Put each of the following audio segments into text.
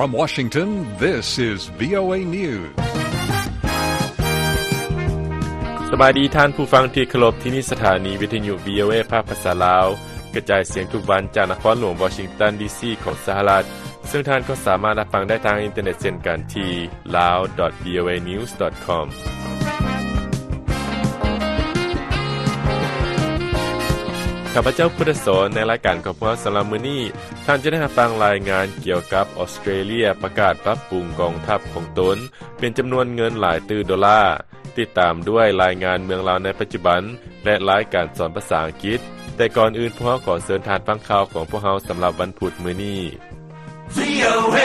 From Washington, this is VOA News. ສະບາຍດີທ່ານຜູ້ຟັງທີ່ເຄົາລົບ, ທີ່ນີ້ສະຖານີວິທະຍຸ VOA ພາກພາສາລາວ, ກະຈາຍສຽງທຸກວັນຈາກນະຄອນຫຼວງວໍຊິງຕັນ ດີຊີ ຂອງສະຫະລັດ, ເຊິ່ງທ່ານກໍສາມາດຮັບຟັງໄດ້ທາງອິນເຕີເນັດເຊັ່ນກັນທີ່ lawvoanews.com. ຂ້າພະເຈົ້າ ພຸດທະສອນ, ໃນລາຍການຂອງພວກເຮົາສຳລັບມື້ນີ້, ທ່ານຈະໄດ້ຮັບຟັງລາຍງານກ່ຽວກັບອອສເຕຣເລຍປະກາດປັບປຸງກອງທັບຂອງຕົນເປັນຈຳນວນເງິນຫຼາຍຕື້ໂດລາ, ຕິດຕາມດ້ວຍລາຍງານເມືອງລາວໃນປັດຈຸບັນ ແລະ ລາຍການສອນພາສາອັງກິດ. ແຕ່ກ່ອນອື່ນ, ພວກເຮົາຂໍເຊີນທ່ານຟັງຂ່າວຂອງພວກເຮົາສຳລັບວັນພຸດມື້ນີ້. VOA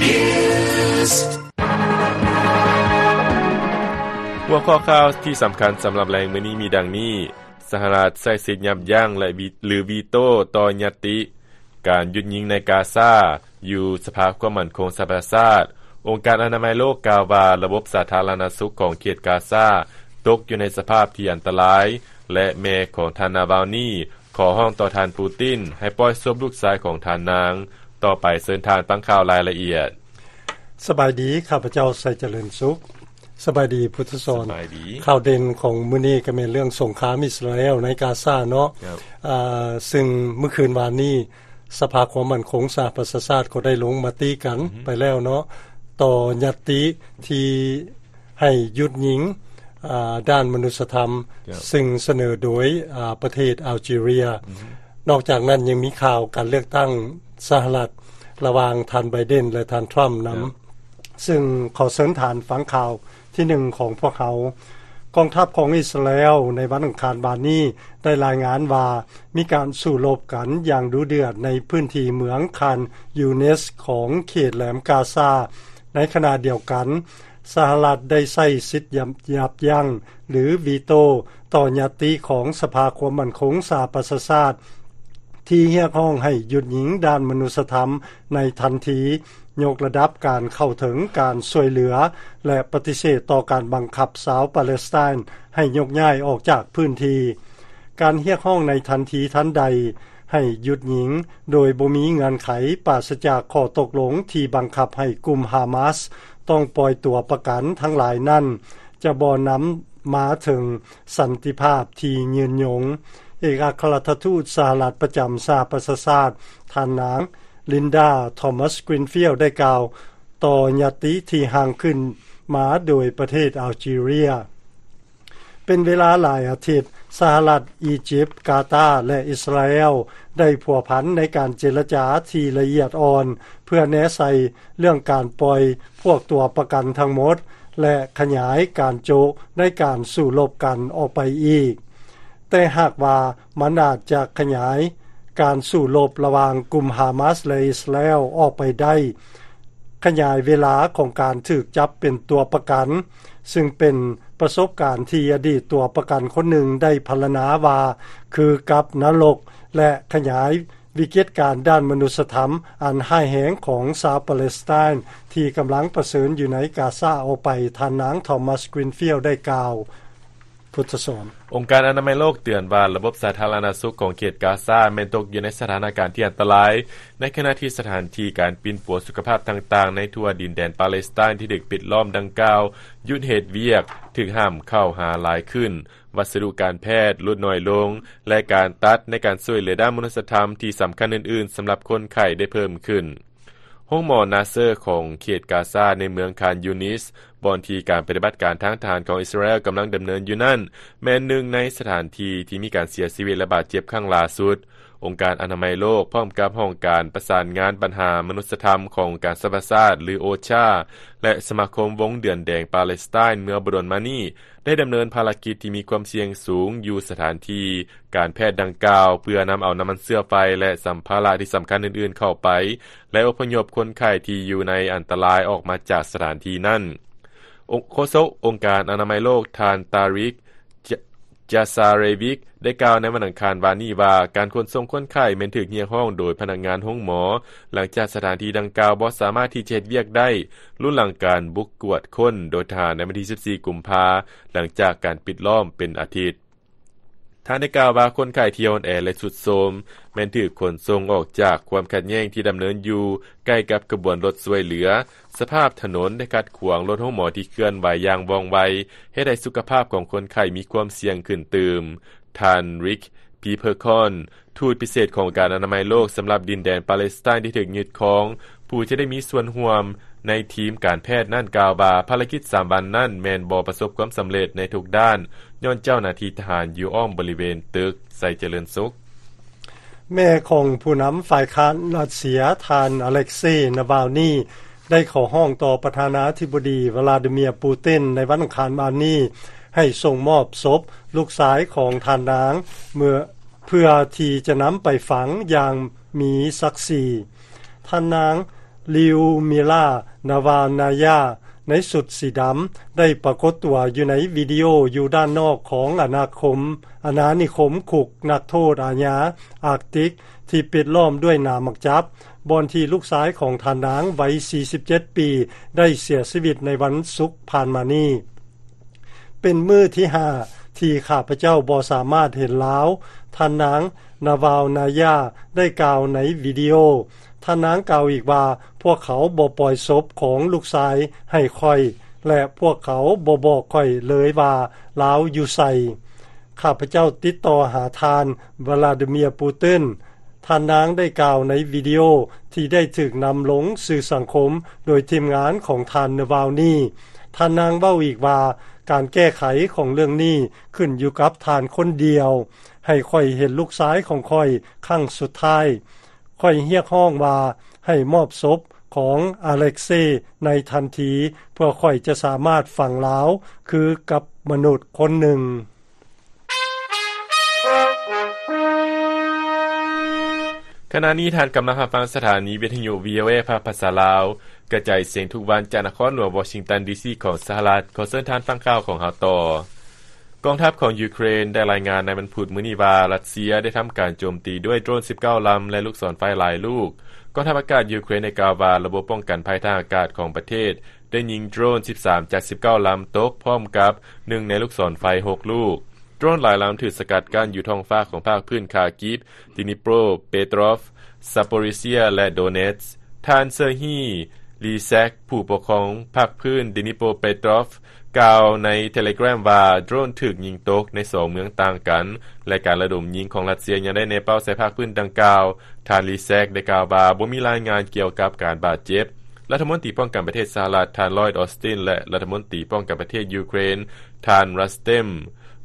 News. ຫົວຂໍ້ຂ່າວທີ່ສຳຄັນສຳລັບແລງມື້ນີ້ມີດັ່ງນີ້. ສະຫະລັດໃຊ້ສິດຍັບຢັ້ງ ແລະ ວີ ຫຼື ວີໂຕ້ຕໍ່ຍັດຕິການຢຸດຍິງໃນກາຊາ ຢູ່ສະພາຄວາມໝັ້ນຄົງສະຫະປະຊາຊາດ. ອົງການອະນາໄມໂລກກ່າວວ່າ ລະບົບສາທາລະນະສຸກຂອງເຂດກາຊາຕົກຢູ່ໃນສະພາບທີ່ອັນຕະລາຍ ແລະ ແມ່ຂອງທ່ານນາວາລນີຂໍຮ້ອງຕໍ່ທ່ານປູຕິນໃຫ້ປ່ອຍສົບລູກຊາຍຂອງທ່ານນາງ. ຕໍ່ໄປເຊີນທ່ານຟັງຂ່າວລາຍລະອຽດ. ສະບາຍດີ, ຂ້າພະເຈົ້າ ໄຊຈະເລີນສຸກ. ສະບາຍດີ ພຸດທະສອນ. ສະບາຍດີ. ຂ່າວເດັ່ນຂອງມື້ນີ້ກໍແມ່ນເລື່ອງສົງຄາມອິດສະຣາແອລໃນກາຊາເນາະ. ອ່າ ຊຶ່ງມື້ຄືນວານນີ້ ສະພາຄວາມໝັ້ນຄົງສະຫະປະຊາຊາດກໍໄດ້ລົງມະຕິກັນໄປແລ້ວເນາະ ຕໍ່ຍັດຕິທີ່ໃຫ້ຢຸດຍິງ ອ່າ ດ້ານມະນຸດສະທຳ ຊຶ່ງສະເໜີໂດຍ ອ່າ ປະເທດອາລຈີເຣຍ. ນອກຈາກນັ້ນຍັງມີຂ່າວການເລືອກຕັ້ງສະຫະລັດ ລະຫວ່າງທ່ານໄບເດັນ ແລະ ທ່ານທຣຳນຳ. ຊຶ່ງຂໍເຊີນທ່ານຟັງຂ່າວທີໜຶ່ງຂອງພວກເຮົາ. ກອງທັບຂອງອິດສະຣາແອລໃນວັນອັງຄານວານນີ້ໄດ້ລາຍງານວ່າ ມີການສູ້ລົບກັນຢ່າງດຸເດືອດໃນພື້ນທີ່ເມືອງຄານຢູນິສຂອງເຂດແຫຼມກາຊາ. ໃນຂະນະດຽວກັນ ສະຫະລັດໄດ້ໃຊ້ສິດຍັບ ຍັບຢັ້ງ ຫຼື ວີໂຕ້ ຕໍ່ຍັດຕິຂອງສະພາຄວາມໝັ້ນຄົງສະຫະປະຊາຊາດ ທີ່ຮຽກຮ້ອງໃຫ້ຢຸດຍິງດ້ານມະນຸດສະທຳໃນທັນທີ, ຍົກລະດັບການເຂົ້າເຖິງການຊ່ວຍເຫຼືອ ແລະ ປະຕິເສດຕໍ່ການບັງຄັບຊາວປາເລສໄຕນໃຫ້ຍົກຍ້າຍອອກຈາກພື້ນທີ່. ການຮຽກຮ້ອງໃນທັນທີທັນໃດໃຫ້ຢຸດຍິງໂດຍບໍ່ມີເງື່ອນໄຂ, ປາສະຈາກຂໍ້ຕົກລົງທີ່ບັງຄັບໃຫ້ກຸ່ມຮາມາສຕ້ອງປ່ອຍຕົວປະກັນທັງຫຼາຍນັ້ນ ຈະບໍ່ນຳມາເຖິງສັນຕິພາບທີ່ຍືນຍົງ. ເອກອັກຄະລັດຖະທູດສະຫະລັດປະຈຳສະຫະປະຊາຊາດ ທ່ານນາງ ລິນດາ ທອມມັສ ກຣີນຟິລ ໄດ້ກ່າວຕໍ່ຍັດຕິທີ່ຮ່າງຂຶ້ນມາໂດຍປະເທດອາລຈີເຣຍ. ເປັນເວລາຫຼາຍອາທິດ, ສະຫະລັດ, ອີຢິບ, ກາຕາ ແລະ ອິດສະຣາແອລ ໄດ້ພົວພັນໃນການເຈລະຈາທີ່ລະອຽດອ່ອນ ເພື່ອແນໃສ່ເລື່ອງການປ່ອຍພວກຕົວປະກັນທັງໝົດ ແລະ ຂະຫຍາຍການໂຈະໃນການສູ້ລົບກັນອອກໄປອີກ. ແຕ່ຫາກວ່າມັນອາດຈະຂະຫຍາຍການສູ້ລົບລະຫວ່າງກຸ່ມຮາມາສ ແລະ ອິດສະຣາແອລອອກໄປໄດ້, ຂະຫຍາຍເວລາຂອງການຖືກຈັບເປັນຕົວປະກັນ, ຊຶ່ງເປັນປະສົບການທີ່ອະດີດຕົວປະກັນຄົນໜຶ່ງໄດ້ພັນລະນາວ່າຄືກັບນະລົກ ແລະ ຂະຫຍາຍວິກິດການດ້ານມະນຸດສະທຳອັນຮ້າຍແຮງຂອງຊາວປາເລສໄຕນທີ່ກຳລັງປະເຊີນຢູ່ໃນກາຊາອອກໄປ, ທ່ານນາງ ທອມມັສ ກຣີນຟິລ ໄດ້ກ່າວ. ພຸດທະສອນ. ອົງການອະນາໄມໂລກເຕືອນວ່າ ລະບົບສາທາລະນະສຸກຂອງເຂດກາຊາແມ່ນຕົກຢູ່ໃນສະຖານະການທີ່ອັນຕະລາຍ, ໃນຂະນະທີ່ສະຖານທີ່ການປິ່ນປົວສຸຂະພາບຕ່າງໆໃນທົ່ວດິນແດນປາເລສໄຕນທີ່ຖືກປິດລ້ອມດັ່ງກ່າວຢຸດເຮັດວຽກ, ຖືກຫ້າມເຂົ້າຫາຫຼາຍຂຶ້ນ, ວັດສະດຸການແພດຫຼຸດໜ້ອຍລົງ ແລະ ການຕັດໃນການຊ່ວຍເຫຼືອດ້ານມະນຸດສະທຳທີ່ສຳຄັນອື່ນໆສຳລັບຄົນໄຂ້ໄດ້ເພີ່ມຂຶ້ນ. ໂຮງໝໍນາເຊີຂອງເຂດກາຊາໃນເມືອງຄານຢູນິສ ບ່ອນທີ່ການປະຕິບັດການທາງທະຫານຂອງອິດສະຣາແອລກຳລັງດຳເນີນຢູ່ນັ້ນ ແມ່ນໜຶ່ງໃນສະຖານທີ່ທີ່ມີການເສຍຊີວິດ ແລະ ບາດເຈັບຄັ້ງຫຼ້າສຸດ. ອົງການອະນາໄມໂລກ ພ້ອມກັບຫ້ອງການປະສານງານບັນຫາມະນຸດສະທຳຂອງອົງການສະຫະປະຊາຊາດ ຫຼື ໂອຊາ ແລະ ສະມາຄົມວົງເດືອນແດງປາເລສໄຕນເມື່ອບໍ່ດົນມານີ້ ໄດ້ດຳເນີນພາລະກິດທີ່ມີຄວາມສ່ຽງສູງຢູ່ສະຖານທີ່ການແພດດັ່ງກ່າວ ເພື່ອນຳເອົານ້ຳມັນເຊື້ອໄຟ ແລະ ສຳພາລະທີ່ສຳຄັນອື່ນໆເຂົ້າໄປ ແລະ ອົບພະຍົບຄົນໄຂ້ທີ່ຢູ່ໃນອັນຕະລາຍອອກມາຈາກສະຖານທີ່ນັ້ນ. ໂຄສົກອົງການອະນາໄມໂລກ ທ່ານ ຕາຣິກ ຈາ ຈາຊາເຣວິກ ໄດ້ກ່າວໃນວັນອັງຄານວານນີ້ວ່າ ການຂົນສົ່ງຄົນໄຂ້ແມ່ນຖືກຮຽກຮ້ອງໂດຍພະນັກງານໂຮງໝໍ ຫຼັງຈາກສະຖານທີ່ດັ່ງກ່າວບໍ່ສາມາດທີ່ຈະເຮັດວຽກໄດ້ ລຸນຫຼັງການບຸກກວດຄົ້ນໂດຍທະຫານໃນວັນທີສິບສີ່ ກຸມພາ ຫຼັງຈາກການປິດລ້ອມເປັນອາທິດ. ທ່ານໄດ້ກ່າວວ່າ ຄົນໄຂ້ທີ່ອ່ອນແອ ແລະ ຊຸດໂຊມ ແມ່ນຖືກຂົນສົ່ງອອກຈາກຄວາມຂັດແຍ່ງທີ່ດຳເນີນຢູ່ໃກ້ກັບຂະບວນລົດຊ່ວຍເຫຼືອ. ສະພາບຖະໜົນໄດ້ຂັດຂວາງລົດໂຮງໝໍທີ່ເຄື່ອນໄຫວຢ່າງວ່ອງໄວ, ເຮັດໃຫ້ສຸຂະພາບຂອງຄົນໄຂ້ມີຄວາມສ່ຽງຂຶ້ນຕື່ມ. ທ່ານ Rick Peppercorn ທູດພິເສດຂອງອົງການອະນາໄມໂລກສຳລັບດິນແດນປາເລສໄຕນທີ່ຖືກຍຶດຄອງ, ຜູ້ທີ່ໄດ້ມີສ່ວນຮ່ວມໃນທີມການແພດນັ້ນກ່າວວ່າ ພາລະກິດສາມວັນນັ້ນແມ່ນບໍ່ປະສົບຄວາມສຳເລັດໃນທຸກດ້ານ ຍ້ອນເຈົ້າໜ້າທີ່ທະຫານຢູ່ອ້ອມບໍລິເວນຕຶກໄຊຈະເລີນສຸກ. ແມ່ຂອງຜູ້ນຳຝ່າຍຄ້ານຣັດເຊຍ ທ່ານ ອາເລັກເຊ ນາວາລນີ ໄດ້ຂໍຮ້ອງຕໍ່ປະທານາທິບໍດີ ວລາດີເມຍ ປູຕິນ ໃນວັນອັງຄານວານນີ້ ໃຫ້ສົ່ງມອບສົບລູກຊາຍຂອງທ່ານນາງ ເມື່ອ ເພື່ອທີ່ຈະນຳໄປຝັງຢ່າງມີສັກສີ. ທ່ານນາງ ລິວມິລາ ນາວານາຍາ ໃນຊຸດສີດຳ ໄດ້ປາກົດຕົວຢູ່ໃນວິດີໂອຢູ່ດ້ານນອກຂອງອານາຄົມ ອານານິຄົມຄຸກນັກໂທດອາຍາອາກຕິກ ທີ່ປິດລ້ອມດ້ວຍໜາມໝາກຈັບ, ບ່ອນທີ່ລູກຊາຍຂອງທ່ານນາງໄວສີ່ສິບເຈັດປີ ໄດ້ເສຍຊີວິດໃນວັນສຸກຜ່ານມານີ້. ເປັນມື້ທີຫ້າທີ່ຂ້າພະເຈົ້າບໍ່ສາມາດເຫັນລາວ, ທ່ານນາງ ນາວາລນາຍາ ໄດ້ກ່າວໃນວິດີໂອ. ທ່ານນາງກ່າວອີກວ່າ, ພວກເຂົາບໍ່ປ່ອຍສົບຂອງລູກຊາຍໃຫ້ຂ້ອຍ ແລະ ພວກເຂົາບໍ່ບອກຂ້ອຍເລີຍວ່າລາວຢູ່ໃສ. ຂ້າພະເຈົ້າຕິດຕໍ່ຫາທ່ານ ວລາດີເມຍ ປູຕິນ. ທ່ານນາງໄດ້ກ່າວໃນວິດີໂອທີ່ໄດ້ຖືກນຳລົງສື່ສັງຄົມໂດຍທີມງານຂອງທ່ານ ນາວາລນີ. ທ່ານນາງເວົ້າອີກວ່າ, ການແກ້ໄຂຂອງເລື່ອງນີ້ຂຶ້ນຢູ່ກັບທ່ານຄົນດຽວ. ໃຫ້ຂ້ອຍເຫັນລູກຊາຍຂອງຂ້ອຍຄັ້ງສຸດທ້າຍ. ຂ້ອຍຮຽກຮ້ອງວ່າໃຫ້ມອບສົບຂອງອາເລັກເຊໃນທັນທີ ເພື່ອຂ້ອຍຈະສາມາດຝັງລາວຄືກັບມະນຸດຄົນໜຶ່ງ. ຂະນະນີ້ທ່ານກຳລັງຮັບຟັງສະຖານີວິທະຍຸ ວີໂອເອ ພາກພາສາລາວ ກະຈາຍສຽງທຸກວັນຈາກນະຄອນຫຼວງວໍຊິງຕັນ ດີຊີ ຂອງສະຫະລັດ. ຂໍເຊີນທ່ານຟັງຂ່າວຂອງເຮົາຕໍ່. ກອງທັບຂອງຢູເຄຣນໄດ້ລາຍງານໃນວັນພຸດມື້ນີ້ວ່າ ຣັດເຊຍໄດ້ທຳການໂຈມຕີດ້ວຍໂດຣນສິບເກົ້າລຳ ແລະ ລູກສອນໄຟຫຼາຍລູກ. ກອງທັບອາກາດຢູເຄຣນໄດ້ກ່າວວ່າ ລະບົບປ້ອງກັນໄພທາງອາກາດຂອງປະເທດ ໄດ້ຍິງໂດຣນສິບສາມຈາກສິບເກົ້າລຳຕົກ ພ້ອມກັບໜຶ່ງໃນລູກສອນໄຟຫົກລູກ. ໂດຣນຫຼາຍລຳຖືກສະກັດກັ້ນຢູ່ທ້ອງຟ້າຂອງພາກພື້ນຄາກິບ, ດີນິໂປຣເປໂຕຣອຟ, ຊາໂປຣີເຊຍ ແລະ ໂດເນັດ. ທ່ານ ເຊີຮີ ລີແຊັກ ຜູ້ປົກຄອງພາກພື້ນດີນິໂປຣເປໂຕຣອຟ ກ່າວໃນເທເລແກຣມວ່າ ໂດຣນຖືກຍິງຕົກໃນສອງເມືອງຕ່າງກັນ ແລະ ການລະດົມຍິງຂອງຣັດເຊຍຍັງໄດ້ແນເປົ້າໃສ່ພາກພື້ນດັ່ງກ່າວ. ທ່ານ ລີແຊັກ ໄດ້ກ່າວວ່າ ບໍ່ມີລາຍງານກ່ຽວກັບການບາດເຈັບ. ລັດຖະມົນຕີປ້ອງກັນປະເທດສະຫະລັດ ທ່ານ ລອຍດ ອອສຕິນ ແລະ ລັດຖະມົນຕີປ້ອງກັນປະເທດຢູເຄຣນ ທ່ານ ຣັສເຕັມ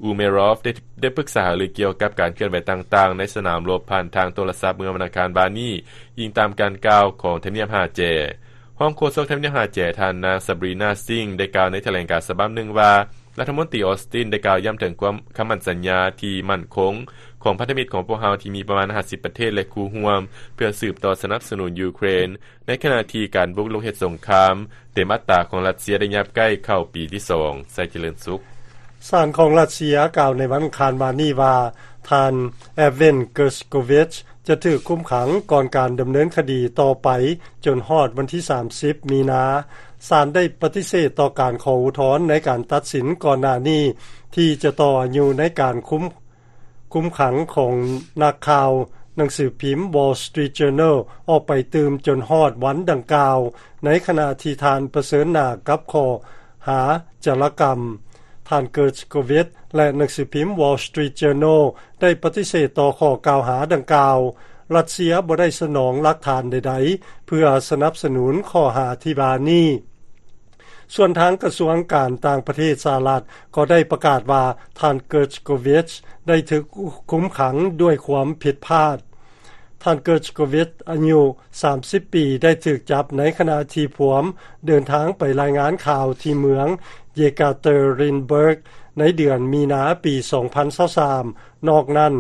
ອູເມຣອບ ໄດ້ ໄດ້ປຶກສາຫາລືກ່ຽວກັບການເຄື່ອນໄຫວຕ່າງໆໃນສະໜາມລົບຜ່ານທາງໂທລະສັບເມື່ອວັນອັງຄານວານນີ້, ອີງຕາມການກ່າວຂອງທຳນຽບຫ້າແຈ. ຮອງໂຄສົກທຳນຽບຫ້າແຈ ທ່ານນາງ ຊາບຣີນາ ຊິງ ໄດ້ກ່າວໃນຖະແຫຼງການສະບັບໜຶ່ງວ່າ ລັດຖະມົນຕີ ອອສຕິນ ໄດ້ກ່າວຢ້ຳເຖິງຄວາມຄຳໝັ້ນສັນຍາທີ່ໝັ້ນຄົງຂອງພັນທະມິດຂອງພວກເຮົາທີ່ມີປະມານຫ້າສິບປະເທດ ແລະ ຄູ່ຮ່ວມ ເພື່ອສືບຕໍ່ສະໜັບສະໜູນຢູເຄຣນ ໃນຂະນະທີ່ການບຸກລຸກເຮັດສົງຄາມເຕັມອັດຕາຂອງຣັດເຊຍໄດ້ຫຍັບໃກ້ເຂົ້າປີທີສອງ. ໄຊຈະເລີນສຸກ. ສານຂອງຣັດເຊຍກ່າວໃນວັນອັງຄານວານນີ້ວ່າ ທ່ານ ແອບເວັນ ເກີສໂກວິຊ ຈະຖືກຄຸມຂັງກ່ອນການດຳເນີນຄະດີຕໍ່ໄປຈົນຮອດວັນທີສາມສິບ ມີນາ. ສານໄດ້ປະຕິເສດຕໍ່ການຂໍອຸທອນໃນການຕັດສິນກ່ອນໜ້ານີ້ ທີ່ຈະຕໍ່ອາຍຸໃນການຄຸມ ຄຸມຂັງຂອງນັກຂ່າວໜັງສືພິມ Wall Street Journal ອອກໄປຕື່ມຈົນຮອດວັນດັ່ງກ່າວ, ໃນຂະນະທີ່ທ່ານປະເຊີນໜ້າກັບຂໍ້ຫາຈາລະກຳ. ທ່ານ ເກີສໂກວິຊ ແລະ ໜັງສືພິມ Wall Street Journal ໄດ້ປະຕິເສດຕໍ່ຂໍ້ກ່າວຫາດັ່ງກ່າວ. ຣັດເຊຍບໍ່ໄດ້ສະໜອງຫຼັກຖານໃດໆ ເພື່ອສະໜັບສະໜູນຂໍ້ຫາທີ່ວ່ານີ້. ສ່ວນທາງກະຊວງການຕ່າງປະເທດສະຫະລັດກໍໄດ້ປະກາດວ່າ ທ່ານ ເກີສໂກວິຊ ໄດ້ຖືກຄຸມຂັງດ້ວຍຄວາມຜິດພາດ. ທ່ານ ເກີສໂກວິຊ ອາຍຸສາມສິບປີ ໄດ້ຖືກຈັບໃນຂະນະທີ່ພວມເດີນທາງໄປລາຍງານຂ່າວທີ່ເມືອງ Yekaterinburg ໃນເດືອນມີນາປີສອງພັນຊາວສາມ. ນອກນັ້ນ,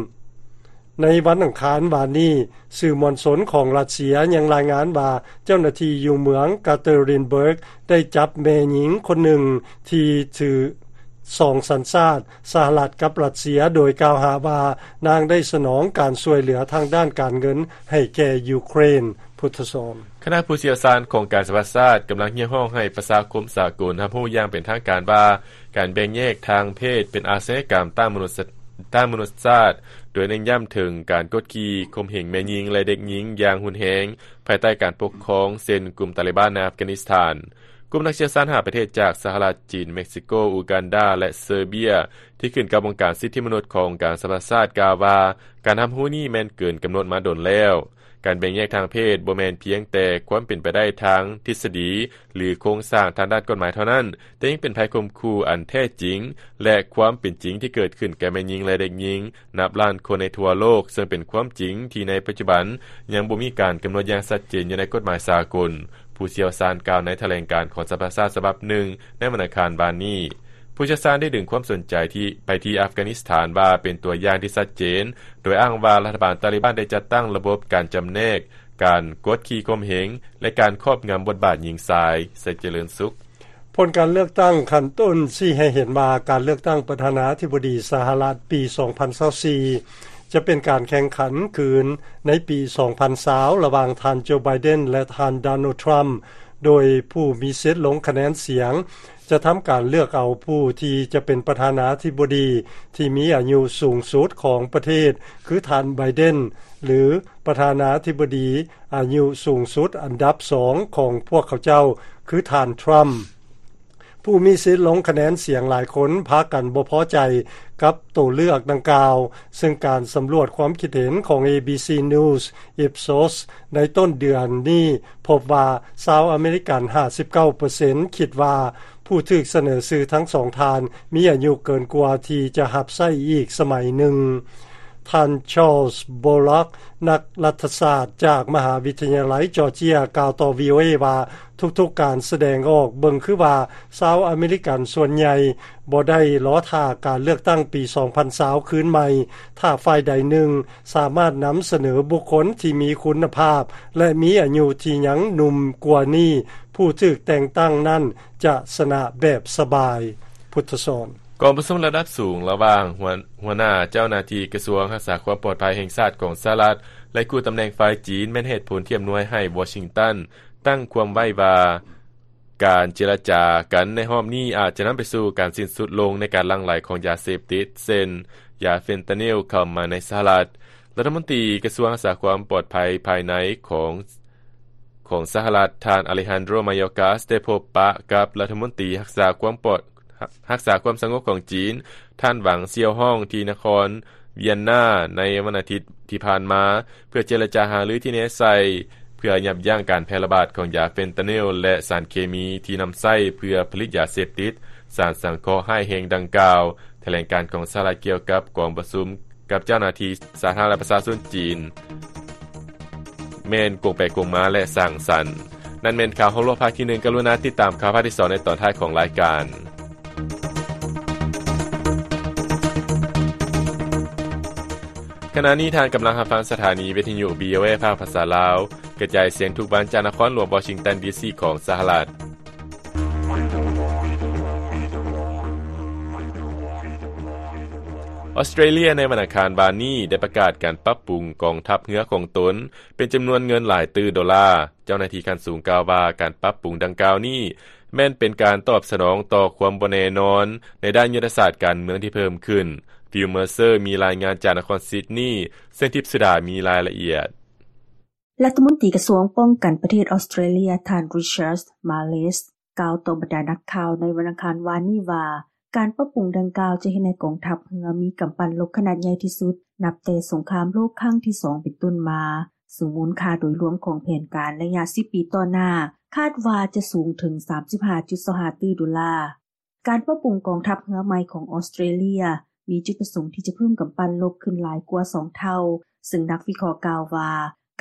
ໃນວັນອັງຄານວານນີ້, ສື່ມວນຊົນຂອງຣັດເຊຍຍັງລາຍງານວ່າ ເຈົ້າໜ້າທີ່ຢູ່ເມືອງ Katerinburg ໄດ້ຈັບແມ່ຍິງຄົນໜຶ່ງທີ່ຖືສອງສັນຊາດ ສະຫະລັດກັບຣັດເຊຍ ໂດຍກ່າວຫາວ່ານາງໄດ້ສະໜອງການຊ່ວຍເຫຼືອທາງດ້ານການເງິນໃຫ້ແກ່ຢູເຄຣນ. ພຸດທະສອນ. ຄະນະຜູ້ຊ່ຽວຊານຂອງການສະຫະປະຊາຊາດກຳລັງຮຽກຮ້ອງໃຫ້ປະຊາຄົມສາກົນຮັບຮູ້ຢ່າງເປັນທາງການວ່າ ການແບ່ງແຍກທາງເພດເປັນອາຊະຍາກຳຕ້ານມະນຸດ ຕ້ານມະນຸດຊາດ, ໂດຍເນັ້ນຢ້ຳເຖິງການກົດຂີ່ຂົ່ມເຫງແມ່ຍິງ ແລະ ເດັກຍິງຢ່າງຮຸນແຮງ ພາຍໃຕ້ການປົກຄອງ ເຊັ່ນ ກຸ່ມຕາລີບານໃນອັຟການິສຖານ. ກຸ່ມນັກຊ່ຽວຊານຫ້າປະເທດຈາກສະຫະລັດ, ຈີນ, ເມັກຊິໂກ, ອູການດາ ແລະ ເຊີເບຍ ທີ່ຂຶ້ນກັບອົງການສິດທິມະນຸດຂອງການສະຫະປະຊາຊາດ ກ່າວວ່າ ການຮັບຮູ້ນີ້ແມ່ນເກີນກຳນົດມາດົນແລ້ວ. ການແບ່ງແຍກທາງເພດບໍ່ແມ່ນພຽງແຕ່ຄວາມເປັນໄປໄດ້ທາງທິດສະດີ ຫຼື ໂຄງສ້າງທາງດ້ານກົດໝາຍເທົ່ານັ້ນ, ແຕ່ຍັງເປັນໄພຂົ່ມຂູ່ອັນແທ້ຈິງ ແລະ ຄວາມເປັນຈິງທີ່ເກີດຂຶ້ນແກ່ແມ່ຍິງ ແລະ ເດັກຍິງນັບລ້ານຄົນໃນທົ່ວໂລກ, ເຊິ່ງເປັນຄວາມຈິງທີ່ໃນປັດຈຸບັນຍັງບໍ່ມີການກຳນົດຢ່າງຊັດເຈນຢູ່ໃນກົດໝາຍສາກົນ, ຜູ້ຊ່ຽວຊານກ່າວໃນຖະແຫຼງການຂອງສະຫະປະຊາຊາດສະບັບໜຶ່ງໃນວັນອັງຄານວານນີ້. ຜູ້ຊ່ຽວຊານໄດ້ດຶງຄວາມສົນໃຈທີ່ ໄປທີ່ອັຟການິສຖານວ່າເປັນຕົວຢ່າງທີ່ຊັດເຈນ, ໂດຍອ້າງວ່າລັດຖະບານຕາລີບານໄດ້ຈັດຕັ້ງລະບົບການຈຳແນກ, ການກົດຂີ່ຂົ່ມເຫງ ແລະ ການຄອບງຳບົດບາດຍິງຊາຍ. ໄຊເຈລິນສຸກ. ຜົນການເລືອກຕັ້ງຂັ້ນຕົ້ນຊີ້ໃຫ້ເຫັນວ່າ ການເລືອກຕັ້ງປະທານາທິບໍດີສະຫະລັດປີສອງພັນຊາວສີ່ ຈະເປັນການແຂ່ງຂັນຄືນໃນປີສອງພັນຊາວ ລະຫວ່າງທ່ານ ໂຈ ໄບເດັນ ແລະ ທ່ານ ໂດນັລ ທຣຳ, ໂດຍຜູ້ມີສິດລົງຄະແນນສຽງ ຈະທຳການເລືອກເອົາຜູ້ທີ່ຈະເປັນປະທານາທິບໍດີທີ່ມີອາຍຸສູງສຸດຂອງປະເທດ ຄືທ່ານ ໄບເດັນ ຫຼື ປະທານາທິບໍດີອາຍຸສູງສຸດອັນດັບສອງຂອງພວກເຂົາເຈົ້າ ຄືທ່ານ ທຣຳ. ຜູ້ມີສິດລົງຄະແນນສຽງຫຼາຍຄົນພາກັນບໍ່ພໍໃຈກັບໂຕເລືອກດັ່ງກ່າວ, ເຊິ່ງການສຳຫຼວດຄວາມຄິດເຫັນຂອງ ເອບີຊີ News Ipsos ໃນຕົ້ນເດືອນນີ້ພົບວ່າ ຊາວອາເມລິກັນຫ້າສິບເກົ້າເປີເຊັນຄິດວ່າ ຜູ້ຖືກສະເໜີຊື່ທັງສອງທ່ານມີອາຍຸເກີນກວ່າທີ່ຈະຮັບໃຊ້ອີກສະໄໝໜຶ່ງ. ທ່ານ ຊາລສ ໂບລັກ ນັກລັດຖະສາດຈາກມະຫາວິທະຍາໄລຈອດເຈຍ ກ່າວຕໍ່ ວີໂອເອ ວ່າ ທຸກໆການສະແດງອອກເບິ່ງຄືວ່າ ຊາວອາເມລິກັນສ່ວນໃຫຍ່ບໍ່ໄດ້ລໍຖ້າການເລືອກຕັ້ງປີສອງພັນຊາວຄືນໃໝ່ ຖ້າຝ່າຍໃດໜຶ່ງສາມາດນຳສະເໜີບຸກຄົນທີ່ມີຄຸນນະພາບ ແລະ ມີອາຍຸທີ່ຍັງໜຸ່ມກວ່ານີ້ ຜູ້ຖືກແຕ່ງຕັ້ງນັ້ນຈະຊະນະແບບສະບາຍ. ພຸດທະສອນ. ກອງປະຊຸມລະດັບສູງລະຫວ່າງຫົວ ຫົວໜ້າເຈົ້າໜ້າທີ່ກະຊວງຮັກສາຄວາມປອດໄພແຫ່ງຊາດຂອງສະຫະລັດ ແລະ ຄູ່ຕຳແໜ່ງຝ່າຍຈີນ ແມ່ນເຫດຜົນທີ່ອຳນວຍໃຫ້ວໍຊິງຕັນຕັ້ງຄວາມໄວ້ວ່າ ການເຈລະຈາກັນໃນຮອບນີ້ອາດຈະນຳໄປສູ່ການສິ້ນສຸດລົງໃນການຫຼັ່ງໄຫຼຂອງຢາເສບຕິດ ເຊັ່ນ ຢາເຟນຕານິລ ເຂົ້າມາໃນສະຫະລັດ. ລັດຖະມົນຕີກະຊວງຮັກສາຄວາມປອດໄພພາຍໃນຂອງ ຂອງສະຫະລັດ ທ່ານ ອາເລຮານໂດ ມາໂຍກາສ ໄດ້ພົບປະກັບລັດຖະມົນຕີຮັກສາຄວາມປອດ ຮັກສາຄວາມສະຫງົບຂອງຈີນ ທ່ານ ຫວັງ ຊຽວຮອງ ທີ່ນະຄອນວຽນນາໃນວັນອາທິດທີ່ຜ່ານມາ ເພື່ອເຈລະຈາຫາລືທີ່ແນໃສ່ ເພື່ອຢັບຢັ້ງການແຜ່ລະບາດຂອງຢາເຟນຕານິລ ແລະ ສານເຄມີທີ່ນຳໃຊ້ເພື່ອຜະລິດຢາເສບຕິດ, ສານສັງເຄາະຮ້າຍແຮງດັ່ງກ່າວ. ຖະແຫຼງການຂອງສະຫະລັດກ່ຽວກັບກອງປະຊຸມ ກັບເຈົ້າໜ້າທີ່ສາທາລະນະລັດປະຊາຊົນຈີນ ແມ່ນກົງໄປກົງມາ ແລະ ສ້າງສັນ. ນັ້ນແມ່ນຂ່າວຮອບໂລກພາກທີໜຶ່ງ. ກະລຸນາຕິດຕາມຂ່າວພາກທີສອງໃນຕອນທ້າຍຂອງລາຍການ. ຂະນະນີ້ທ່ານກຳລັງຮັບຟັງສະຖານີວິທະຍຸ ວີໂອເອ ພາກພາສາລາວ, ກະຈາຍສຽງທຸກວັນຈາກນະຄອນຫຼວງວໍຊິງຕັນ ດີຊີ ຂອງສະຫະລັດ. ອອສເຕຣເລຍໃນວັນອັງຄານວານນີ້ໄດ້ປະກາດການປັບປຸງກອງທັບເຮືອຂອງຕົນເປັນຈຳນວນເງິນຫຼາຍຕື້ໂດລາ. ເຈົ້າໜ້າທີ່ຂັ້ນສູງກ່າວວ່າ ການປັບປຸງດັ່ງກ່າວນີ້ແມ່ນເປັນການຕອບສະໜອງຕໍ່ຄວາມບໍ່ແນ່ນອນໃນດ້ານຍຸດທະສາດການເມືອງທີ່ເພີ່ມຂຶ້ນ. ຟິວ ເມີເຊີ ມີລາຍງານຈາກນະຄອນຊິດນີ, ເຊິ່ງທິບສຸດາມີລາຍລະອຽດ. ລັດຖະມົນຕີກະຊວງປ້ອງກັນປະເທດອອສເຕຣເລຍ ທ່ານ ຣິຊາດ ມາເລສ ກ່າວຕໍ່ບັນດານັກຂ່າວໃນວັນອັງຄານວານນີ້ວ່າ ການປັບປຸງດັ່ງກ່າວຈະເຮັດໃຫ້ກອງທັບເຮືອມີກຳປັ່ນລົບຂະໜາດໃຫຍ່ທີ່ສຸດ ນັບແຕ່ສົງຄາມໂລກຄັ້ງທີສອງເປັນຕົ້ນມາ, ເຊິ່ງມູນຄ່າໂດຍລວມຂອງແຜນການໄລຍະສິບປີຕໍ່ໜ້າ ຄາດວ່າຈະສູງເຖິງສາມສິບຫ້າຈຸດສອງຫ້າຕື້ໂດລາ. ການປັບປຸງກອງທັບເຮືອໃໝ່ຂອງອອສເຕຣເລຍ ມີຈຸດປະສົງທີ່ຈະເພີ່ມກຳປັ່ນລົບຂຶ້ນຫຼາຍກວ່າສອງເທົ່າ, ເຊິ່ງນັກວິເຄາະກ່າວວ່າ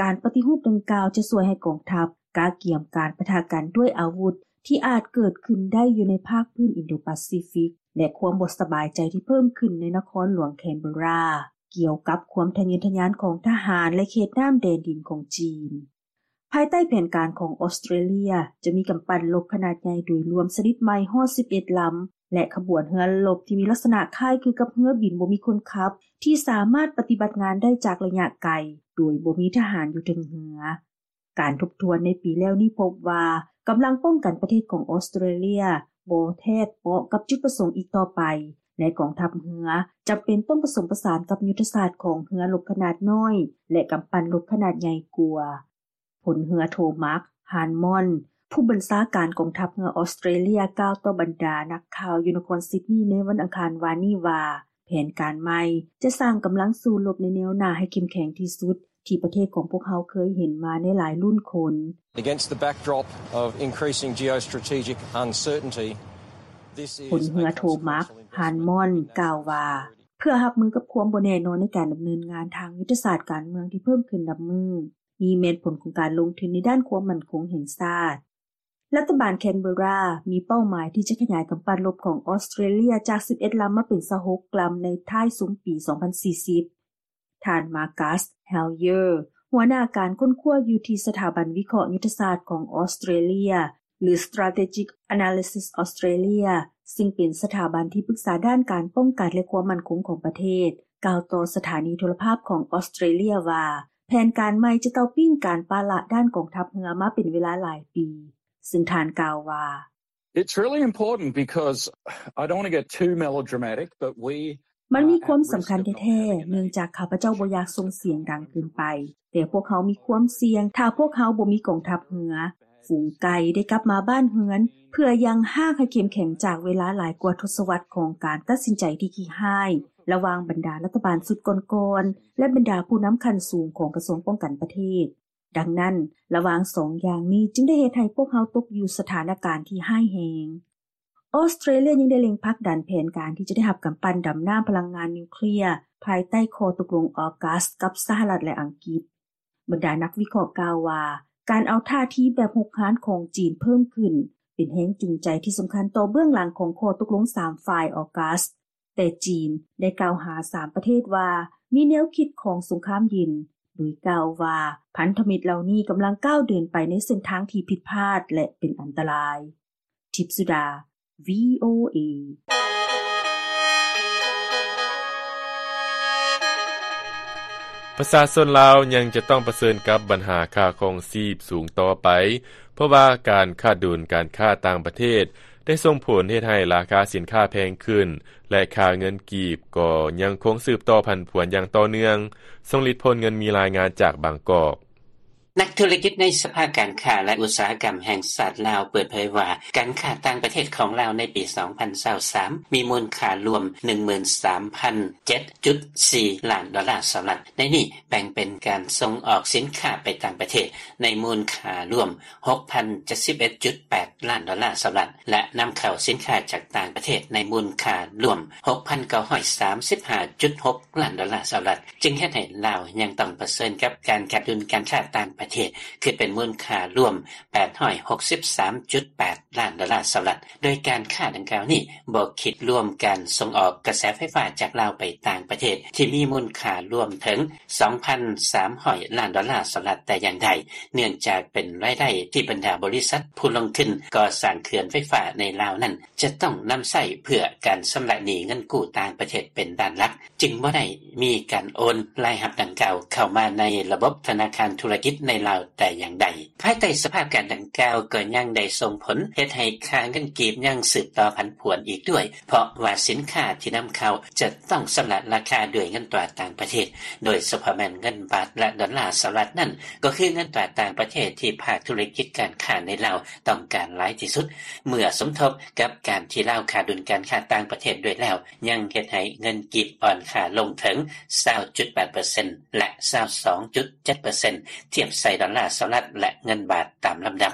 ການປະຕິຮູບດັ່ງກ່າວຈະຊ່ວຍໃຫ້ກອງທັບກະກຽມການປະທະກັນດ້ວຍອາວຸດທີ່ອາດເກີດຂຶ້ນໄດ້ຢູ່ໃນພາກພື້ນອິນໂດປາຊີຟິກ ແລະ ຄວາມບໍ່ສະບາຍໃຈທີ່ເພີ່ມຂຶ້ນໃນນະຄອນຫຼວງແຄນເບີຣາ ກ່ຽວກັບຄວາມທະເຍີທະຍານຂອງທະຫານ ແລະ ເຂດນ້ຳແດນດິນຂອງຈີນ. ພາຍໃຕ້ແຜນການຂອງອອສເຕຣເລຍ ຈະມີກຳປັ່ນລົບຂະໜາດໃຫຍ່ໂດຍລວມຊະນິດໃໝ່ຮອດສິບເອັດລຳ ແລະ ຂະບວນເຮືອລົບທີ່ມີລັກສະນະຄ້າຍຄືກັບເຮືອບິນບໍ່ມີຄົນຂັບ ທີ່ສາມາດປະຕິບັດງານໄດ້ຈາກໄລຍະໄກ ໂດຍບໍ່ມີທະຫານຢູ່ເທິງເຮືອ. ການທົບທວນໃນປີແລ້ວນີ້ພົບວ່າ ກຳລັງປ້ອງກັນປະເທດຂອງອອສເຕຣເລຍບໍ່ແທດເປາະກັບຈຸດປະສົງອີກຕໍ່ໄປ, ແລະ ກອງທັບເຮືອຈຳເປັນຕ້ອງປະສົມປະສານກັບຍຸດທະສາດຂອງເຮືອລົບຂະໜາດນ້ອຍ ແລະ ກຳປັ່ນລົບຂະໜາດໃຫຍ່ກວ່າ. ພົນເຮືອໂທ ມາກ ຮານມອນ ຜູ້ບັນຊາການກອງທັບເຮືອອອສເຕຣເລຍ ກ່າວຕໍ່ບັນດານັກຂ່າວຢູ່ນະຄອນຊິດນີໃນວັນອັງຄານວານນີ້ວ່າ ແຜນການໃໝ່ຈະສ້າງກຳລັງສູ້ລົບໃນແນວໜ້າໃຫ້ເຂັ້ມແຂງທີ່ສຸດ ທີ່ປະເທດຂອງພວກເຮົາເຄີຍເຫັນມາໃນຫຼາຍລຸ້ນຄົນ. Against the backdrop of increasing geostrategic uncertainty, this is ພົນເຮືອໂທ ມາກ ຮານມອນ ກ່າວວ່າ ເພື່ອຮັບມືກັບຄວາມບໍ່ແນ່ນອນໃນການດຳເນີນງານທາງຍຸດທະສາດການເມືອງທີ່ເພີ່ມຂຶ້ນນັບມື້, ນີ້ແມ່ນຜົນຂອງການລົງທຶນໃນດ້ານຄວາມໝັ້ນຄົງແຫ່ງຊາດ. ລັດຖະບານແຄນເບີຣາມີເປົ້າໝາຍທີ່ຈະຂະຫຍາຍກຳປັ່ນລົບຂອງອອສເຕຣເລຍຈາກສິບເອັດລຳມາເປັນຊາວຫົກລຳໃນທ້າຍຊຸມປີສອງພັນສີ່ສິບ. ທ່ານ ມາກັສ ແຮລເຢີ ຫົວໜ້າການຄົ້ນຄວ້າຢູ່ທີ່ສະຖາບັນວິເຄາະຍຸດທະສາດຂອງອອສເຕຣເລຍ ຫຼື Strategic Analysis Australia ຊຶ່ງເປັນສະຖາບັນທີ່ປຶກສາດ້ານການປ້ອງກັນ ແລະ ຄວາມໝັ້ນຄົງຂອງປະເທດ ກ່າວຕໍ່ສະຖານີໂທລະພາບຂອງອອສເຕຣເລຍວ່າ ແຜນການໃໝ່ຈະເຕົ້າປີ້ງການປະລະດ້ານກອງທັບເຮືອມາເປັນເວລາຫຼາຍປີ, ຊຶ່ງທ່ານກ່າວວ່າ It's really important because I don't want to get too melodramatic, but we ມັນມີຄວາມສຳຄັນແທ້ໆ ເນື່ອງຈາກຂ້າພະເຈົ້າບໍ່ຢາກສົ່ງສຽງດັງເກີນໄປ, ແຕ່ພວກເຮົາມີຄວາມສ່ຽງ ຖ້າພວກເຮົາບໍ່ມີກອງທັບເຮືອ. ຝູງໄກ່ໄດ້ກັບມາບ້ານເຮືອນ ເພື່ອຍັງຮາກໃຫ້ເຂັ້ມແຂງຈາກເວລາຫຼາຍກວ່າທົດສະວັດຂອງການຕັດສິນໃຈທີ່ຂີ້ຮ້າຍ ລະຫວ່າງບັນດາລັດຖະບານຊຸດກ່ອນໆ ແລະ ບັນດາຜູ້ນຳຂັ້ນສູງຂອງກະຊວງປ້ອງກັນປະເທດ. ດັ່ງນັ້ນ, ລະຫວ່າງສອງຢ່າງນີ້ຈຶ່ງໄດ້ເຮັດໃຫ້ພວກເຮົາຕົກຢູ່ສະຖານະການທີ່ຮ້າຍແຮງ. ອອສເຕຣເລຍຍັງໄດ້ເລັ່ງຜັກດັນແຜນການທີ່ຈະໄດ້ຮັບກຳປັ່ນດຳນ້ຳພະລັງງານນິວເຄລຍ ພາຍໃຕ້ຂໍ້ຕົກລົງອອກັສກັບສະຫະລັດ ແລະ ອັງກິດ. ບັນດານັກວິເຄາະກ່າວວ່າ ການເອົາທ່າທີແບບຮຸກຮານຂອງຈີນເພີ່ມຂຶ້ນ ເປັນແຮງຈູງໃຈທີ່ສຳຄັນຕໍ່ເບື້ອງຫຼັງຂອງຂໍ້ຕົກລົງສາມຝ່າຍອອກັສ. ແຕ່ຈີນໄດ້ກ່າວຫາສາມປະເທດວ່າ ມີແນວຄິດຂອງສົງຄາມເຢັນ, ໂດຍກ່າວວ່າ ພັນທະມິດເຫຼົ່ານີ້ກຳລັງກ້າວເດີນໄປໃນເສັ້ນທາງທີ່ຜິດພາດ ແລະ ເປັນອັນຕະລາຍ. ທິບສຸດາ ວີໂອເອ. ປະຊາຊົນລາວຍັງຈະຕ້ອງປະເຊີນກັບບັນຫາຄ່າຄອງຊີບສູງຕໍ່ໄປ, ເພາະວ່າການຂາດດຸນການຄ້າຕ່າງປະເທດໄດ້ສົ່ງຜົນເຮັດໃຫ້ລາຄາສິນຄ້າແພງຂຶ້ນ ແລະ ຄ່າເງິນກີບກໍຍັງຄົງສືບຕໍ່ຜັນຜວນຢ່າງຕໍ່ເນື່ອງ. ຊົງລິດ ໂພນເງິນ ມີລາຍງານຈາກບາງກອກ. ນັກທຸລະກິດໃນສະພາການຄ້າ ແລະ ອຸດສາຫະກຳແຫ່ງຊາດລາວເປີດເຜີຍວ່າ ການຄ້າຕ່າງປະເທດຂອງລາວໃນປີສອງພັນຊາວສາມ ມີມູນຄ່າລວມໜຶ່ງໝື່ນສາມພັນເຈັດຈຸດສີ່ລ້ານດອນລາສະຫະລັດ. ໃນນີ້ແບ່ງເປັນການສົ່ງອອກສິນຄ້າໄປຕ່າງປະເທດໃນມູນຄ່າລວມຫົກພັນເຈັດສິບເອັດຈຸດແປດລ້ານດອນລາສະຫະລັດ ແລະ ນຳເຂົ້າສິນຄ້າຈາກຕ່າງປະເທດໃນມູນຄ່າລວມຫົກພັນເກົ້າຮ້ອຍສາມສິບຫ້າຈຸດຫົກລ້ານດອນລາສະຫະລັດ, ຈຶ່ງເຮັດໃຫ້ລາວຍັງຕ້ອງປະເຊີນກັບການຂາດດຸນການຄ້າຕ່າງປະເທດ ຄິດເປັນມູນຄ່າລວມແປດຮ້ອຍຫົກສິບສາມຈຸດແປດລ້ານດອນລາສະຫະລັດ, ໂດຍການຄ້າດັ່ງກ່າວນີ້ບໍ່ຄິດລວມການສົ່ງອອກກະແສໄຟຟ້າຈາກລາວໄປຕ່າງປະເທດ ທີ່ມີມູນຄ່າລວມເຖິງສອງພັນສາມຮ້ອຍລ້ານດອນລາສະຫະລັດແຕ່ຢ່າງໃດ, ເນື່ອງຈາກເປັນລາຍໄດ້ທີ່ບັນດາບໍລິສັດຜູ້ລົງທຶນກໍ່ສ້າງເຂື່ອນໄຟຟ້າໃນລາວນັ້ນ ຈະຕ້ອງນຳໃຊ້ເພື່ອການຊຳລະໜີ້ເງິນກູ້ຕ່າງປະເທດເປັນດ້ານຫຼັກ, ຈຶ່ງບໍ່ໄດ້ມີການໂອນລາຍຮັບດັ່ງກ່າວເຂົ້າມາໃນລະບົບທະນາຄານທຸລະກິດໃນລາວແຕ່ຢ່າງໃດ. ພາຍໃຕ້ສະພາບການດັ່ງກ່າວກໍຍັງໄດ້ສົ່ງຜົນເຮັດໃຫ້ຄ່າເງິນກີບຍັງສືບຕໍ່ຜັນຜວນອີກດ້ວຍ, ເພາະວ່າສິນຄ້າທີ່ນຳເຂົ້າຈະຕ້ອງຊຳລະລາຄາດ້ວຍເງິນຕາຕ່າງປະເທດ, ໂດຍສະເພາະແມ່ນເງິນບາດ ແລະ ດອນລາສະຫະລັດນັ້ນ ກໍຄືເງິນຕາຕ່າງປະເທດທີ່ພາກທຸລະກິດການຄ້າໃນລາວ ຕ້ອງການຫຼາຍທີ່ສຸດ. ເມື່ອສົມທົບກັບການທີ່ລາວຂາດດຸນການຄ້າຕ່າງປະເທດດ້ວຍແລ້ວ, ຍັງເຮັດໃຫ້ເງິນກີບອ່ອນຄ່າລົງເຖິງຊາວຈຸດແປດເປີເຊັນ ແລະ ຊາວສອງຈຸດເຈັດເປີເຊັນ ທຽບໃສ່ດອນລາສະຫະລັດ ແລະ ເງິນບາດຕາມລຳດັບ,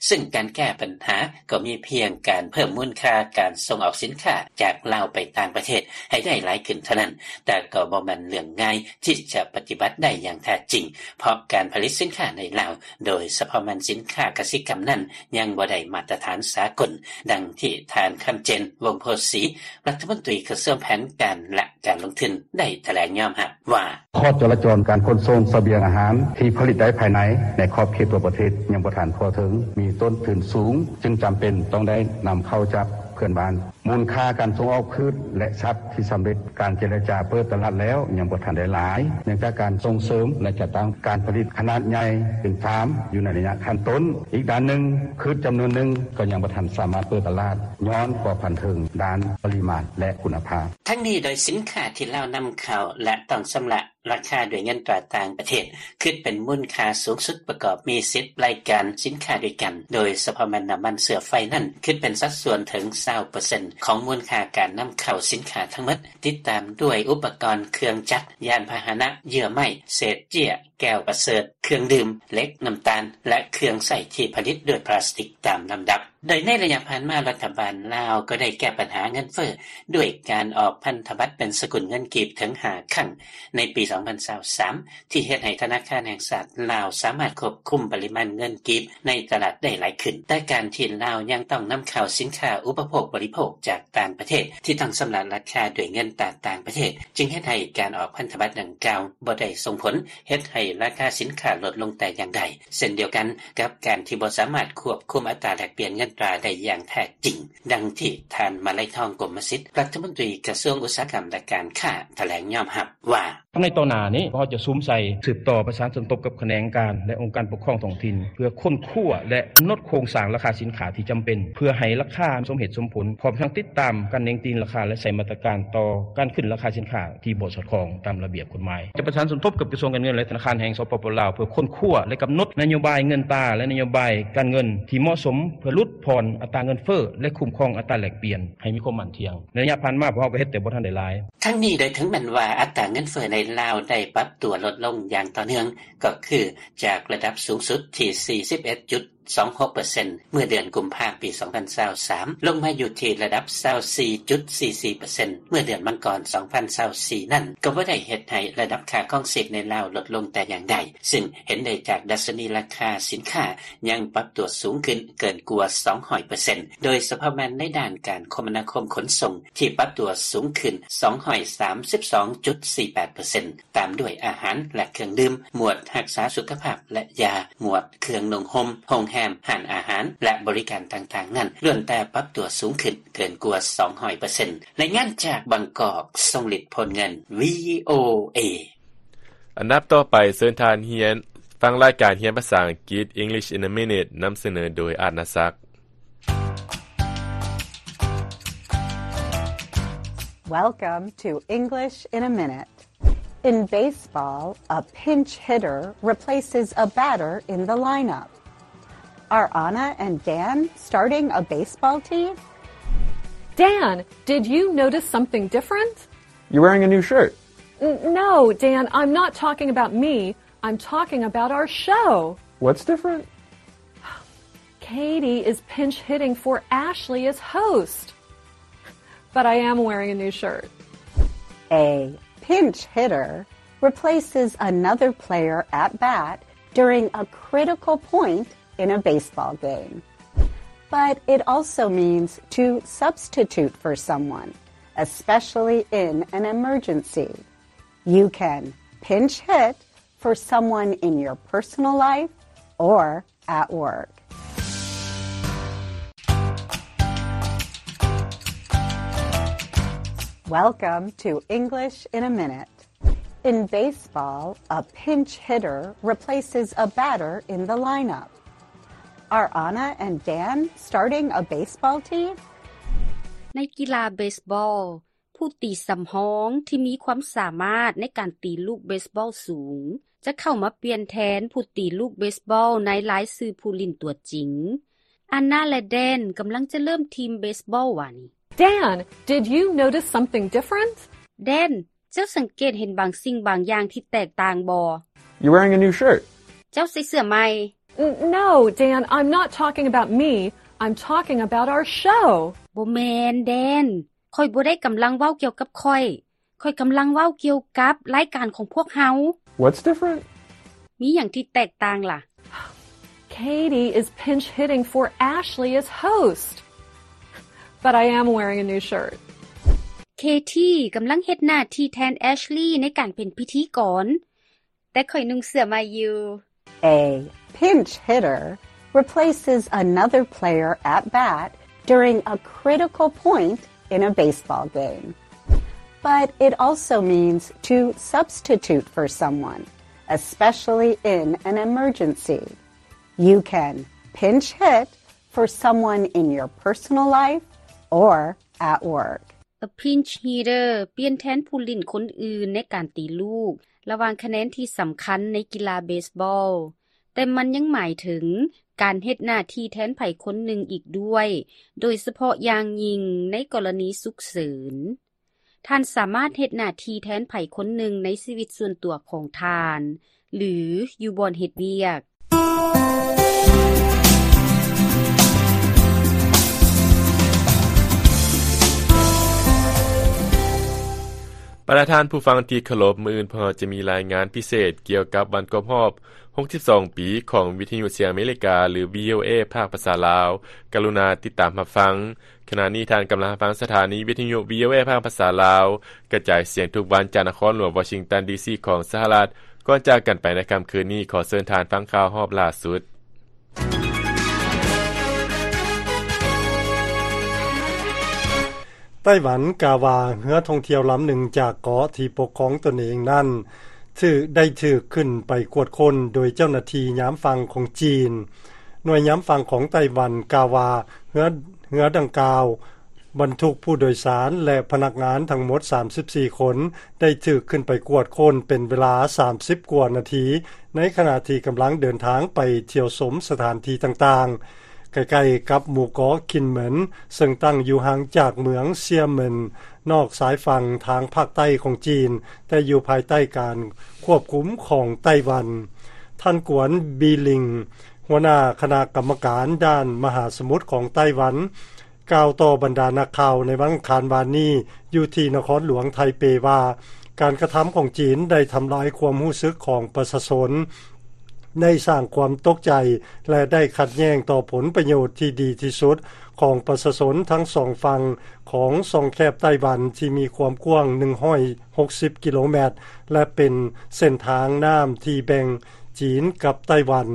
ຊຶ່ງການແກ້ບັນຫາກໍມີພຽງການເພີ່ມມູນຄ່າການສົ່ງອອກສິນຄ້າຈາກລາວໄປຕ່າງປະເທດໃຫ້ໄດ້ຫຼາຍຂຶ້ນເທົ່ານັ້ນ, ແຕ່ກໍບໍ່ແມ່ນເລື່ອງງ່າຍທີ່ຈະປະຕິບັດໄດ້ຢ່າງແທ້ຈິງ, ເພາະການຜະລິດສິນຄ້າໃນລາວ ໂດຍສະເພາະແມ່ນສິນຄ້າກະສິກຳນັ້ນ ຍັງບໍ່ໄດ້ມາດຕະຖານສາກົນ, ດັ່ງທີ່ທ່ານ ຄຳເຈນ ວົງໂພສີ ລັດຖະມົນຕີກະຊວງແຜນການ ແລະ ການລົງທຶນ ໄດ້ຖະແຫຼງຍອມຮັບວ່າ: ຂໍ້ຈະລາຈອນການຂົນສົ່ງສະບຽງອາຫານທີ່ຜະລິດໄດ້ພາຍໃນ ໃນຂອບເຂດຕົວປະເທດຍັງບໍ່ທັນທົ່ວເຖິງ, ມີຕົ້ນທຶນສູງ, ຈຶ່ງຈຳເປັນຕ້ອງໄດ້ນຳເຂົ້າຈາກເພື່ອນບ້ານ. ມູນຄ່າການສົ່ງອອກພືດ ແລະ ສັດທີ່ສຳເລັດການເຈລະຈາເປີດຕະຫຼາດແລ້ວ ຍັງບໍ່ທັນໄດ້ຫຼາຍ ເນື່ອງຈາກການສົ່ງເສີມ ແລະ ຈັດຕັ້ງການຜະລິດຂະໜາດໃຫຍ່ເປັນຟາມ ຢູ່ໃນໄລຍະຂັ້ນຕົ້ນ. ອີກດ້ານໜຶ່ງ, ພືດຈຳນວນໜຶ່ງກໍຍັງບໍ່ທັນສາມາດເປີດຕະຫຼາດ ຍ້ອນບໍ່ທັນເຖິງດ້ານປະລິມານ ແລະ ຄຸນນະພາບ. ທັງນີ້ ໂດຍສິນຄ້າທີ່ລາວນຳເຂົ້າ ແລະ ຕ້ອງຊຳລະ ລາຄາດ້ວຍເງິນຕາຕ່າງປະເທດ ຄິດເປັນມູນຄ່າສູງສຸດປະກອບມີສິບລາຍການສິນຄ້າດ້ວຍກັນ, ໂດຍສະເພາະແມ່ນນ້ຳມັນເຊື້ອໄຟນັ້ນ ຄິດເປັນສັດສ່ວນເຖິງຊາວເປີເຊັນຂອງມູນຄ່າການນຳເຂົ້າສິນຄ້າທັງໝົດ, ຕິດຕາມດ້ວຍອຸປະກອນເຄື່ອງຈັກ, ຍານພາຫະນະ, ເຍື່ອໄມ້, ເສດເຈ້ຍ, ແກ້ວປະເສີດ, ເຄື່ອງດື່ມ, ເຫຼັກ, ນ້ຳຕານ ແລະ ເຄື່ອງໃຊ້ທີ່ຜະລິດດ້ວຍພລາສຕິກຕາມລຳດັບ. ໂດຍໃນໄລຍະຜ່ານມາ ລັດຖະບານລາວກໍໄດ້ແກ້ບັນຫາເງິນເຟີ້ດ້ວຍການອອກພັນທະບັດເປັນສະກຸນເງິນກີບເຖິງຫ້າຄັ້ງໃນປີສອງພັນຊາວສາມ ທີ່ເຮັດໃຫ້ທະນາຄານແຫ່ງຊາດລາວສາມາດຄວບຄຸມປະລິມານເງິນກີບໃນຕະຫຼາດໄດ້ຫຼາຍຂຶ້ນ. ແຕ່ການທີ່ລາວຍັງຕ້ອງນຳເຂົ້າສິນຄ້າອຸປະໂພກບໍລິໂພກຈາກຕ່າງປະເທດ ທີ່ຕ້ອງຊຳລະລາຄາດ້ວຍເງິນຕາຕ່າງປະເທດ ຈຶ່ງເຮັດໃຫ້ການອອກພັນທະບັດດັ່ງກ່າວບໍ່ໄດ້ສົ່ງຜົນເຮັດໃຫ້ລາຄາສິນຄ້າລົດລົງແຕ່ຢ່າງໃດ. ເຊັ່ນດຽວກັນກັບການທີ່ບໍ່ສາມາດຄວບຄຸມອັດຕາແລກປ່ຽນເງິນຕາໄດ້ຢ່າງແທ້ຈິງ, ດັ່ງທີ່ທ່ານ ມະໄລທອງ ກົມມະສິດ ລັດຖະມົນຕີກະຊວງອຸດສາຫະກຳ ແລະ ການຄ້າ ຖະແຫຼງຍອມຮັບວ່າ: ໃນຕໍ່ໜ້ານີ້ ພວກເຮົາຈະສຸມໃສ່ສືບຕໍ່ປະສານສົມທົບກັບຂະແໜງການ ແລະ ອົງການປົກຄອງທ້ອງຖິ່ນ ເພື່ອຄົ້ນຄວ້າ ແລະ ກຳນົດໂຄງສ້າງລາຄາສິນຄ້າທີ່ຈຳເປັນ ເພື່ອໃຫ້ລາຄາສົມເຫດສົມຜົນ, ພ້ອມທັງຕິດຕາມການເໜັງຕີນລາຄາ ແລະ ໃຊ້ມາດຕະການຕໍ່ການຂຶ້ນລາຄາສິນຄ້າ ທີ່ບໍ່ສອດຄ່ອງຕາມລະບຽບກົດໝາຍ. ຈະປະສານສົມທົບກັບກະຊວງການເງິນ ແລະ ທະນາຄານແຫ່ງ ສປປ ລາວ ເພື່ອຄົ້ນຄວ້າ ແລະ ກຳນົດນະໂຍບາຍເງິນຕາ ແລະ ນະໂຍບາຍການເງິນທີ່ເໝາະສົມ ເພື່ອຫຼຸດຜ່ອນອັດຕາເງິນເຟີ້ ແລະ ຄຸ້ມຄອງອັດຕາແລກປ່ຽນໃຫ້ມີຄວາມໝັ້ນທ່ຽງ. ໃນໄລຍະຜ່ານມາ ພວກເຮົາກໍເຮັດແຕ່ບໍ່ທັນໄດ້ຫຼາຍ. ທັງນີ້ ໂດຍເຖິງແມ່ນວ່າອັດຕາເງິນເຟີ້ໃນລາວໄດ້ປັບຕົວລົດລົງຢ່າງຕໍ່ເນື່ອງ, ກໍຄືຈາກລະດັບສູງສຸດທີ່ສີ່ສິບເອັດຈຸດ ສອງຫົກເປີເຊັນ ເມື່ອເດືອນກຸມພາ ປີສອງພັນຊາວສາມ ລົງມາຢູ່ທີ່ລະດັບຊາວສີ່ຈຸດສີ່ສີ່ເປີເຊັນ ເມື່ອເດືອນມັງກອນ ສອງພັນຊາວສີ່ນັ້ນ ກໍບໍ່ໄດ້ເຮັດໃຫ້ລະດັບຄ່າຄອງຊີບໃນລາວລົດລົງແຕ່ຢ່າງໃດ, ຊຶ່ງເຫັນໄດ້ຈາກດັດຊະນີລາຄາສິນຄ້າຍັງປັບຕົວສູງຂຶ້ນເກີນກວ່າສອງຮ້ອຍເປີເຊັນ ໂດຍສະເພາະແມ່ນໃນດ້ານການຄົມມະນາຄົມຂົນສົ່ງ ທີ່ປັບຕົວສູງຂຶ້ນສອງຮ້ອຍສາມສິບສອງຈຸດສີ່ແປດເປີເຊັນ ຕາມດ້ວຍອາຫານ ແລະ ເຄື່ອງດື່ມ, ໝວດຮັກສາສຸຂະພາບ ແລະ ຢາ, ໝວດເຄື່ອງນຸ່ງຫົ່ມ, ໂຮງແຮມ, ຮ້ານອາຫານ ແລະ ບໍລິການຕ່າງໆນັ້ນ ລ້ວນແຕ່ປັບຕົວສູງຂຶ້ນເກີນກວ່າສອງຮ້ອຍເປີເຊັນ. ລາຍງານຈາກບາງກອກ, ຊົງລິດ ໂພນເງິນ ວີໂອເອ. ອັນດັບຕໍ່ໄປ, ເຊີນທ່ານຮຽນ ຟັງລາຍການຮຽນພາສາອັງກິດ English in a Minute ນຳສະເໜີໂດຍ ອາດນາສັກ. Welcome to English in a Minute. In baseball, a pinch hitter replaces a batter in the lineup. Are Anna and Dan starting a baseball team? Dan, did you notice something different? You're wearing a new shirt. N-, no, Dan, I'm not talking about me. I'm talking about our show. What's different? Katie is pinch hitting for Ashley as host. But I am wearing a new shirt. A pinch hitter replaces another player at bat during a critical point in a baseball game. But it also means to substitute for someone, especially in an emergency. You can pinch hit for someone in your personal life or at work. Welcome to English in a Minute. In baseball, a pinch hitter replaces a batter in the lineup. Are Anna and Dan starting a baseball team? ໃນກິລາເບສບອລ, ຜູ້ຕີສຳຮອງທີ່ມີຄວາມສາມາດໃນການຕີລູກເບສບອລສູງ ຈະເຂົ້າມາປ່ຽນແທນຜູ້ຕີລູກເບສບອລໃນລາຍຊື່ຜູ້ຫຼິ້ນຕົວຈິງ. ອານນາ ແລະ ແດນ ກຳລັງຈະເລີ່ມທີມເບສບອລວ່ານີ້. Dan, did you notice something different? ແດນ, ເຈົ້າສັງເກດເຫັນບາງສິ່ງບາງຢ່າງທີ່ແຕກຕ່າງບໍ່? You're wearing a new shirt. ເຈົ້າໃສ່ເສື້ອໃໝ່. N-, no, Dan, I'm not talking about me. I'm talking about our show. ບໍ່ແມ່ນ, ແດນ. ຂ້ອຍບໍ່ໄດ້ກຳລັງເວົ້າກ່ຽວກັບຂ້ອຍ. ຂ້ອຍກຳລັງເວົ້າກ່ຽວກັບລາຍການຂອງພວກເຮົາ. What's different? ມີຫຍັງທີ່ແຕກຕ່າງລະ? Katie is pinch hitting for Ashley as host. But I am wearing a new shirt. ເຄທີ ກຳລັງເຮັດໜ້າທີ່ແທນແອັດເລີຍ ໃນການເປັນພິທີກອນ. ແຕ່ຂ້ອຍນຸ່ງເສື້ອໃໝ່ຢູ່. A pinch hitter replaces another player at bat during a critical point in a baseball game. But it also means to substitute for someone, especially in an emergency. You can pinch hit for someone in your personal life or at work. A pinch hitter ປ່ຽນແທນຜູ້ຫຼິ້ນຄົນອື່ນໃນການຕີລູກ ລະຫວ່າງຄະແນນທີ່ສຳຄັນໃນກິລາເບສບອລ, ແຕ່ມັນຍັງໝາຍເຖິງການເຮັດໜ້າທີ່ແທນໃຜຄົນໜຶ່ງອີກດ້ວຍ, ໂດຍສະເພາະຢ່າງຍິ່ງໃນກໍລະນີສຸກເສີນ. ທ່ານສາມາດເຮັດໜ້າທີ່ແທນໃຜຄົນໜຶ່ງໃນຊີວິດສ່ວນຕົວຂອງທ່ານ ຫຼື ຢູ່ບ່ອນເຮັດວຽກ. ບັນດາທ່ານຜູ້ຟັງທີ່ເຄົາລົບ, ມື້ອື່ນພວກເຮົາຈະມີລາຍງານພິເສດກ່ຽວກັບວັນຄົບຮອບຫົກສິບສອງປີຂອງວິທະຍຸສຽງອາເມລິກາ ຫຼື ວີໂອເອ ພາກພາສາລາວ. ກະລຸນາຕິດຕາມຮັບຟັງ. ຂະນະນີ້ທ່ານກຳລັງຟັງສະຖານີວິທະຍຸ ວີໂອເອ ພາກພາສາລາວ ກະຈາຍສຽງທຸກວັນຈາກນະຄອນຫຼວງວໍຊິງຕັນ ດີຊີ ຂອງສະຫະລັດ. ກ່ອນຈາກກັນໄປໃນຄ່ຳຄືນນີ້, ຂໍເຊີນທ່ານຟັງຂ່າວຮອບລ່າສຸດ. ໄຕ້ຫວັນກ່າວວ່າ ເຮືອທ່ອງທ່ຽວລຳໜຶ່ງຈາກເກາະທີ່ປົກຄອງຕົນເອງນັ້ນ ຖືກ ໄດ້ຖືກຂຶ້ນໄປກວດຄົ້ນໂດຍເຈົ້າໜ້າທີ່ຍາມຝັ່ງຂອງຈີນ. ໜ່ວຍຍາມຝັ່ງຂອງໄຕ້ຫວັນກ່າວວ່າ ເຮືອ ເຮືອດັ່ງກ່າວບັນທຸກຜູ້ໂດຍສານ ແລະ ພະນັກງານທັງໝົດສາມສິບສີ່ຄົນ ໄດ້ຖືກຂຶ້ນໄປກວດຄົ້ນເປັນເວລາສາມສິບກວ່ານາທີ ໃນຂະນະທີ່ກຳລັງເດີນທາງໄປທ່ຽວຊົມສະຖານທີ່ຕ່າງໆ ໃກ້ໆກັບໝູ່ເກາະຄິນເໝິນ ເຊິ່ງຕັ້ງຢູ່ຫ່າງຈາກເມືອງເຊຍເໝິນ ນອກຊາຍຝັ່ງທາງພາກໃຕ້ຂອງຈີນ, ແຕ່ຢູ່ພາຍໃຕ້ການຄວບຄຸມຂອງໄຕ້ຫວັນ. ທ່ານ ກວນ ບີລິງ ຫົວໜ້າຄະນະກຳມະການດ້ານມະຫາສະໝຸດຂອງໄຕ້ຫວັນ ກ່າວຕໍ່ບັນດານັກຂ່າວໃນວັນອັງຄານວານນີ້ ຢູ່ທີ່ນະຄອນຫຼວງໄທເປວ່າ ການກະທຳຂອງຈີນໄດ້ທຳລາຍຄວາມຮູ້ສຶກຂອງປະຊາຊົນ, ໄດ້ສ້າງຄວາມຕົກໃຈ ແລະ ໄດ້ຂັດແຍ່ງຕໍ່ຜົນປະໂຫຍດທີ່ດີທີ່ສຸດຂອງປະຊາຊົນທັງສອງຝັ່ງຂອງຊ່ອງແຄບໄຕ້ຫວັນ ທີ່ມີຄວາມກວ້າງໜຶ່ງຮ້ອຍຫົກສິບກິໂລແມັດ ແລະ ເປັນເສັ້ນທາງນ້ຳທີ່ແບ່ງຈີນກັບໄຕ້ຫວັນ.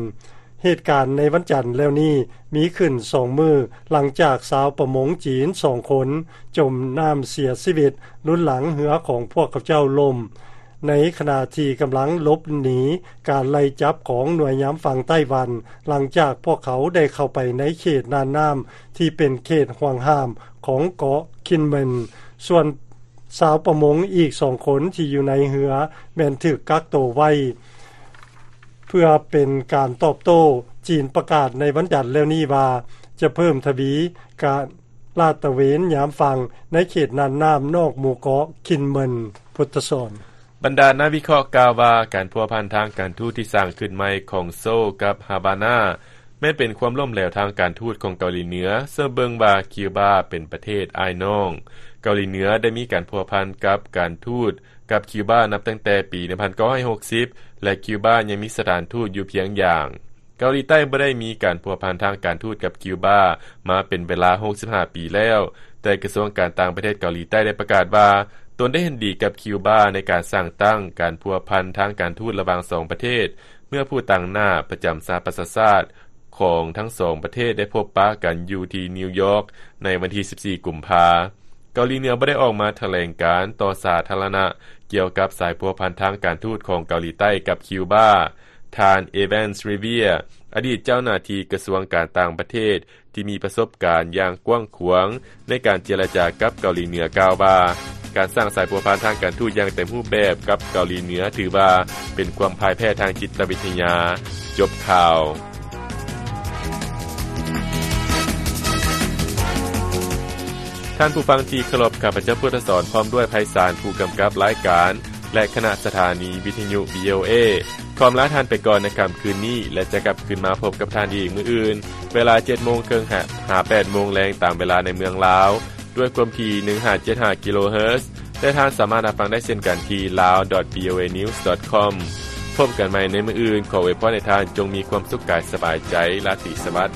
ເຫດການໃນວັນຈັນແລ້ວນີ້ມີຂຶ້ນສອງມື້ ຫຼັງຈາກຊາວປະມົງຈີນສອງຄົນຈົມນ້ຳເສຍຊີວິດ ລຸນຫຼັງເຮືອຂອງພວກເຂົາເຈົ້າລົ້ມ ໃນຂະນະທີ່ກຳລັງຫຼົບໜີການໄລ່ຈັບຂອງໜ່ວຍຍາມຝັ່ງໄຕ້ຫວັນ ຫຼັງຈາກພວກເຂົາໄດ້ເຂົ້າໄປໃນເຂດນ່ານນ້ຳທີ່ເປັນເຂດຫ່ວງຫ້າມຂອງເກາະຄິນເໝິນ. ສ່ວນຊາວປະມົງອີກສອງຄົນທີ່ຢູ່ໃນເຮືອແມ່ນຖືກກັກໂຕໄວ້ ເພື່ອເປັນການຕອບໂຕ້. ຈີນປະກາດໃນວັນຈັນແລ້ວນີ້ວ່າ ຈະເພີ່ມທະວີການລາດຕະເວນຍາມຝັ່ງໃນເຂດນ່ານນ້ຳນອກໝູ່ເກາະຄິນເໝິນ. ພຸດທະສອນ. ບັນດານັກວິເຄາະກ່າວວ່າ ການພົວພັນທາງການທູດທີ່ສ້າງຂຶ້ນໃໝ່ຂອງໂຊກັບຮາວານາ ແມ່ນເປັນຄວາມລົ້ມເຫຼວທາງການທູດຂອງເກົາຫຼີເໜືອ, ເຊິ່ງເບິ່ງວ່າຄິວບາເປັນປະເທດອ້າຍນ້ອງ. ເກົາຫຼີເໜືອໄດ້ມີການພົວພັນກັບການທູດ ກັບຄິວບານັບຕັ້ງແຕ່ປີໜຶ່ງພັນເກົ້າຮ້ອຍຫົກສິບ ແລະ ຄິວບາຍັງມີສະຖານທູດຢູ່ພຽງຢ່າງ. ເກົາຫຼີໃຕ້ບໍ່ໄດ້ມີການພົວພັນທາງການທູດກັບຄິວບາມາເປັນເວລາຫົກສິບຫ້າປີແລ້ວ, ແຕ່ກະຊວງການຕ່າງປະເທດເກົາຫຼີໃຕ້ໄດ້ປະກາດວ່າ ຕົນໄດ້ເຫັນດີກັບຄິວບາໃນການສ້າງຕັ້ງການພົວພັນທາງການທູດລະຫວ່າງສອງປະເທດ ເມື່ອຜູ້ຕາງໜ້າປະຈຳສະຫະປະຊາຊາດຂອງທັງສອງປະເທດໄດ້ພົບປະກັນຢູ່ທີ່ນິວຢອກໃນວັນທີສິບສີ່ ກຸມພາ. ເກົາຫຼີເໜືອບໍ່ໄດ້ອອກມາຖະແຫຼງການຕໍ່ສາທາລະນະກ່ຽວກັບສາຍພົວພັນທາງການທູດຂອງເກົາຫຼີໃຕ້ກັບຄິວບາ. ທ່ານ ເອແວນ ຣີເວຍ ອະດີດເຈົ້າໜ້າທີ່ກະຊວງການຕ່າງປະເທດທີ່ມີປະສົບການຢ່າງກວ້າງຂວາງໃນການເຈລະຈາກັບເກົາຫຼີເໜືອ ກ່າວວ່າ ການສ້າງສາຍພົວພັນທາງການທູດຢ່າງເຕັມຮູບແບບກັບເກົາຫຼີເໜືອ ຖືວ່າເປັນຄວາມພ່າຍແພ້ທາງຈິດຕະວິທະຍາ. ຈົບຂ່າວ. ທ່ານຜູ້ຟັງທີ່ເຄົາລົບ, ຂ້າພະເຈົ້າ ພຸດທະສອນ ພ້ອມດ້ວຍ ໄພສານ ຜູ້ກຳກັບລາຍການ ແລະ ຄະນະສະຖານີວິທະຍຸ ວີໂອເອ ຂໍອຳລາທ່ານໄປກ່ອນໃນຄ່ຳຄືນນີ້ ແລະ ຈະກັບຄືນມາພົບກັບທ່ານອີກມື້ອື່ນ ເວລາເຈັດໂມງເຄິ່ງ ຫາ ຫາ ແປດໂມງແລງ ຕາມເວລາໃນເມືອງລາວ ດ້ວຍຄວາມຖີ່ ໜຶ່ງຫ້າເຈັດຫ້າ ກິໂລເຮີດ ແລະ ທ່ານສາມາດຮັບຟັງໄດ້ເຊັ່ນກັນທີ່ ລາວ ດອດ ວີໂອເອ ນິວສ໌ ດອດ ຄອມ. ພົບກັນໃໝ່ໃນມື້ອື່ນ, ຂໍອວຍພອນໃຫ້ທ່ານຈົ່ງມີຄວາມສຸກກາຍສະບາຍໃຈ, ລາຕີສະຫວັດ.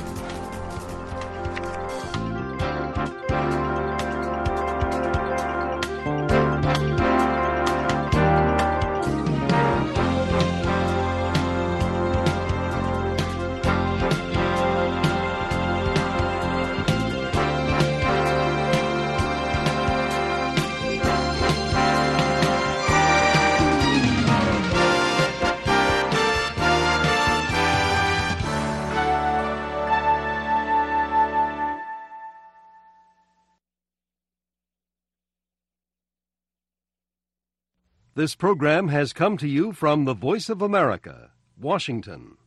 This program has come to you from the Voice of America, Washington.